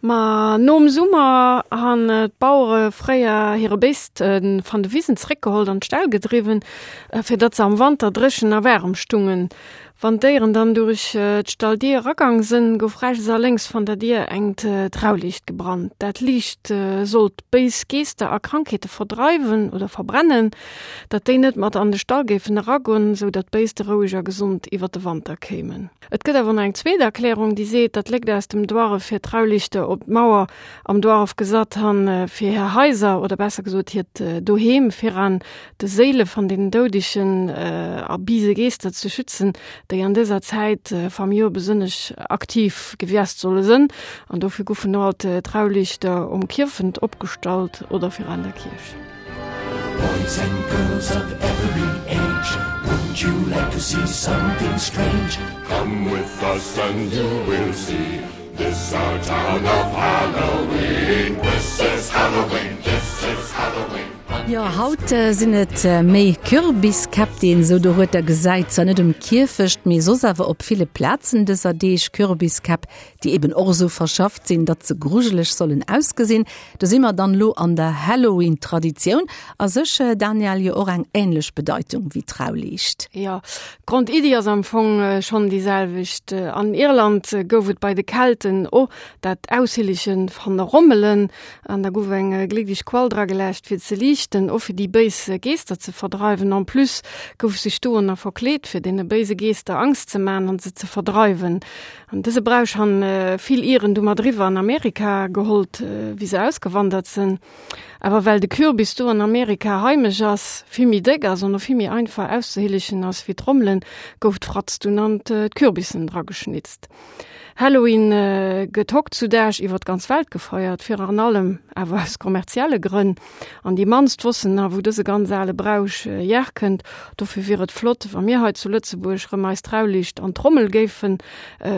Ma nom Summer han d'Bauere fréier hire Béist van de Wisen zréckgehollt an d'Ställ gedriwwen, fir datt se am Wanter dréchen a waarem stungen. Wann d'Déieren dann durich d'Stalldier eragang sënn, gouf rechts a lénks van der Dier engt Trauliicht gebrannt. Dat Liicht sollt béis Geester a Krankheete verdreiwen oder verbrennen, datt déi net mat an de Stall géifen eragon, sou datt d'Béiste roueg a gesond iwwer de Wanter kéimen. Et gëtt awer nach eng zweet Erklärung, déi seet, datt Lékt aus dem Duarref hir Trauliichter op d'Mauer am Duarref gesat han, fir hir Haiser, oder besser gesot hiert Doheem, viran de Séile van den Doudegen a bise Geester ze schützen, déi an dëser Zäit vam Joer besënnesch aktiv gewiast solle sënn. An dofir guffen no alt Trauliichter um Kierfent opgestallt oder viran der Kierch. Boys and girls of every age Wouldn't you like to see something strange? Come with us and you will see This our town of Halloween This is Halloween, this is Halloween Jo, haut sinn et méi Kürbiskäpp, déi een esou dorueter gesäit. Zwar net um Kierfecht, mee soss awer op ville Plazen dëser Deeg. Kürbiskäpp, déi eben och esou verschafft sinn, datt se grujeleg sollen ausgesinn. Do si mer dann elo an der Halloween-Traditioun. A sech, Danièle, jo och eng änlech Bedeitung wéi d'Trauliicht. Jo, d'Grondiddi ass am Fong schonn déi selwecht. An Irland gouf et bei de Kelten och dat Aushillege van Rommelen an da gouf eng gléckleg Quall drageläscht fir ze liichten, och fir déi béis Geester ze verdreiwen. En plus gouf sech do nach verkleet fir deene béise Geester Angst ze man an se ze verdreiwen. An dëse Brauch han vill Iren du mat eriwwer an Amerika gehollt, wéi se ausgewandert sënn. Awer well de Kürbis do an Amerika heimesch ass, vill méi déck ass an och vill méi einfach auszehillegen ass wéi d'Rommelen, gouf d'Fratz dunn an d'Kürbissen drageschnitzt. Halloween gëtt hoktzudaag iwwer d'ganz Welt gefeiert, viraan allem awer aus kommerzielle Grënn. An déi mannst wossen nach, wou dëse ganz ale Brauch hierkënnt. Dofir wier et flott, wa mir hei zu Lëtzebuerg rëm eis Trauliicht an d'Trommel géife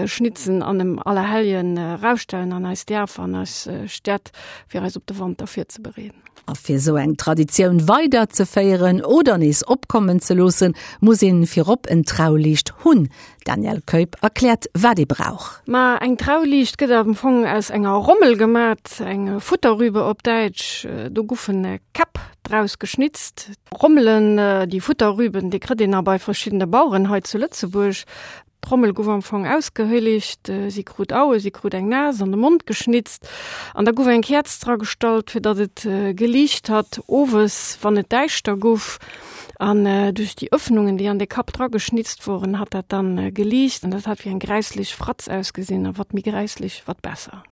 schnitzen an em Allerhelljen rausstellen an eis Dierfer an eis Städt, fir eis op de Wanter virzebereeden. A fir esou eng Traditioun weider ze féieren oder nees opkommen ze loossen, muss een virop en Trauliicht hunn. D'Danièle Keup erkläert, wat ee brauch. Ma eng Trauliicht gëtt am Fong aus enger Rommel gemat, eng Futterrübe op Däitsch. Do guffen Käpp draus geschnitzt. Rommelen, déi Futterrüben, déi kritt een a bei verschiddene Baueren hei zu Lëtzebuerg. D'Trommel guff am Fong ausgehëlligt, si krut Aue, si krut eng Nas an de Mond geschnitzt an da guff eng Käerz dra gestallt, fir datt et geliicht hat owes, wann et däischter guff. An duerch déi Öffnungen, déi an de Kapp dra geschnitzt woren, hat dat dann geliicht an dat hat wéi eng gräisslech Fratz ausgesinn a wat méi gräisslech, wat besser.